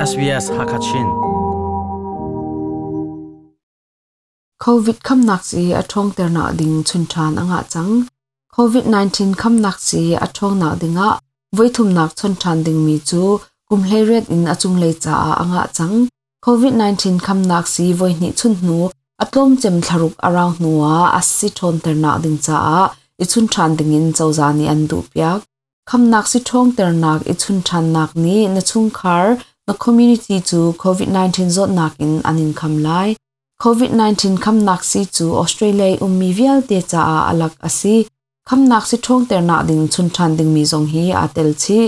SBS Hakachin. COVID khamnak sii a ṭhawngternak ding chun ṭhan a ngah cang. COVID-19 khamnak sii a ṭhawngnak dingah voithumnak chon ṭhan dingmi cu kum 18 in a cunglei caah a ngah cang. COVID-19 khamnak sii voihnih chun hnu a tlawmcem thlaruk a rau hnuah a si ṭhawnternak ding caah i chun ṭhan dingin cozah nih an duhpiak. Khamnak si ṭhawngternak i chun ṭhannak nih na chungkhar, na community cu COVID-19 zawtnak in an in kham lai. COVID-19 khamnak sii cu Australia i ummi vialte caah a lak a si. Khamnak si ṭhawngternak ding chun ṭhan dingmi zong hi aa tel chih.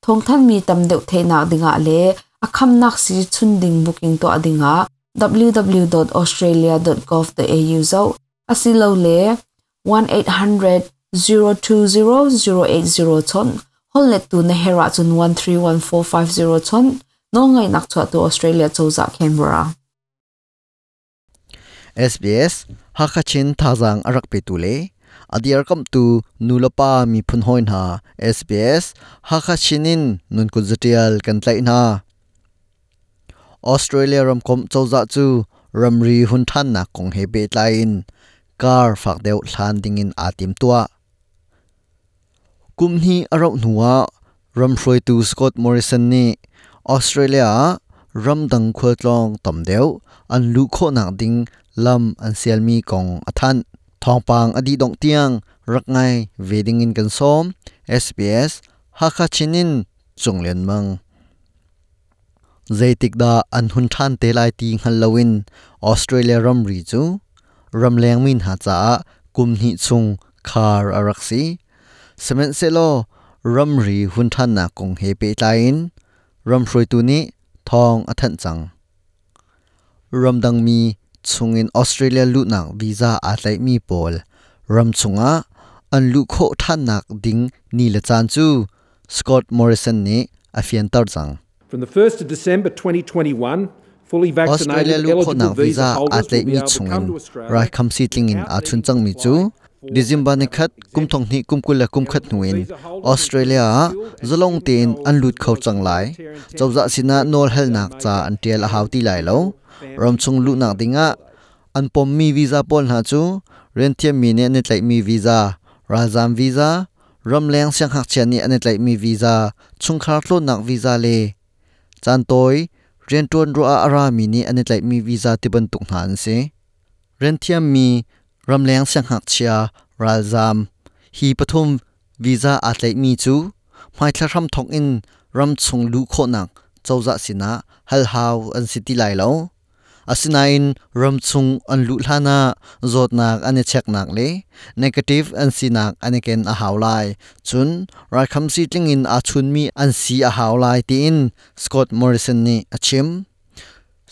Thawngthanhmi tam deuh theihnak dingah le a khamnak sii chun ding booking tuah dingah www.australia.gov.au zoh asilole 1800 020 080 chawnh. Holhlettu na herh ahcun 131450 chawnh. Nawlngaihnak chuahtu Australia cozah Canberra. SBS Hakha Chin thazaang a rak petu le a dirkamhtu nulepa miphun hawi hna SBS Hakha Chin in nun kut zatial kan tlaih hna. Australia ramkomh cozah cu ramri hun ṭhannak kong he pehtlai in kar fak deuh hlan dingin aa timtuah. Kum hnih a rauh hnuah ram hruaitu Scott Morrison nih Australia ah ramdang khualtlawng tam deuh an luh khawhnak ding lam an sialmi kong a thanh. Thawngpang a dih dongh tiang rak ngai ve dingin kan sawm. SBS Hakha Chin in Cung Lian Mang. Zeitik dah an hun ṭhan te lai ti hngal loin Australia ramri cu ramleng mi hna caah kum hnih chung khar a rak si. Sihmanhsehlaw ramri hun ṭhannak kong he pehtlai in ram hruaitu nih thawng a thanh cang. Ramdangmi chungin Australia luhnak visa aa tlaihmi pawl ram chungah an luh khawh ṭhannak ding ni le caan cu Scott Morrison nih a fianter cang. From the 1st of December 2021, fully Australia vaccinated luh eligible khawhnak visa visa aa holders will be tlaihmi able to come chungin to Australia raikhamsi tlingin without aa chun needing to cangmi apply cu for a December travel nikhat kum exemption. thong hnih kum 20 le kum khat Eligible hnu in visa holders include Australia ah skilled and zalong student tein travelers an as lut kho well as cang lai. humanitarian Cozah temporary sinah workers nawl without halnak ca major an ṭial a hau and ti lai lo. official family Ramchung luhnak visa dingah holidays. an pommi visa pawl hna cu rianthiammi nih an i tlaihmi visa, ralzaam visa, ramleng siangngakchia nih an i tlaihmi visa, chungkhar tlawnnak visa le caantawi rianṭuan ruah ah a rami nih an i tlaihmi visa tibantuk hna an si. Rianthiammi ramleng siangngakchia ralzaam hi pathum visa aa tlaihmi cu hmaithla hramthawk in ramchung luh khawhnak cozah sinah hal hau an si ti lai lo. Asinain ramchung an luh hlan ah zawtnak an i cheknak le negative an sinak an i ken a hau lai. Cun raikhamsi tlingin aa chunmi an si a hau lai tiin Scott Morrison nih a chim.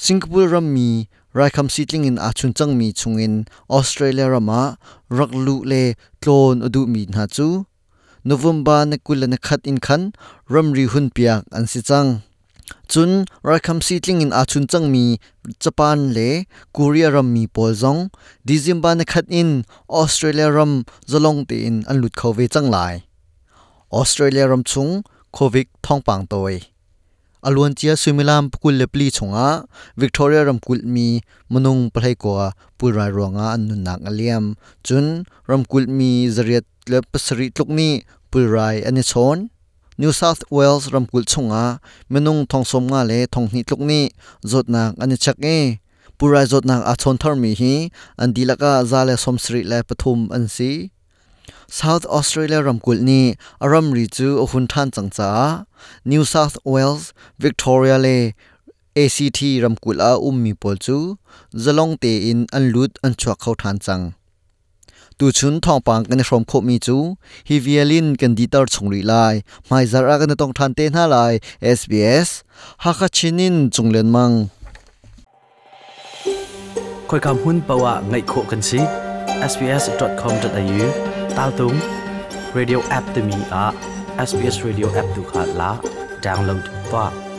Singapore rammi raikhamsi tlingin aa chun cangmi chungin Australia ram ah rak luh le tlawn a duhmi hna cu November ni 21 in khan ramri hunpiak an si cang. Cun raikhamsi tlingin aa chun cangmi Japan le Korea rammi pawl zong December ni khat in Australia ram zalong tein an lut kho ve cang lai. Australia ram chung COVID thawngpang tawi. A luancia suimilam 24 chungah Victoria ramkulh mi minung 19 pulrai ruangah an nunnak a liam. Cun ramkulh mi 807 tluk nih pulrai an i chawn. New South Wales ramkulh chungah minung 75 le 2000 tluk nih zawtnak an i chek i pulrai zawtnak aa chawn tharmi hi an dihlak ah 173 an si. South Australia ramkulh nih a ramri cu a hun ṭhan cang caah New South Wales, Victoria le ACT ramkulh ah a ummi pawl cu zalong tein an lut an chuak kho ṭhan cang. Tuchun thawngpang kan i hrawm khawhmi cu hi vial in kan diter chung rih lai. Hmaizarh ah kan i tong ṭhan te hna lai. SBS Hakha Chin in Cung Lian Mang. Khoika hmun paoh ah ngaih khawh kan si. sbs.com.au taltung radio app timi ah SBS radio app tu kha la download tuah.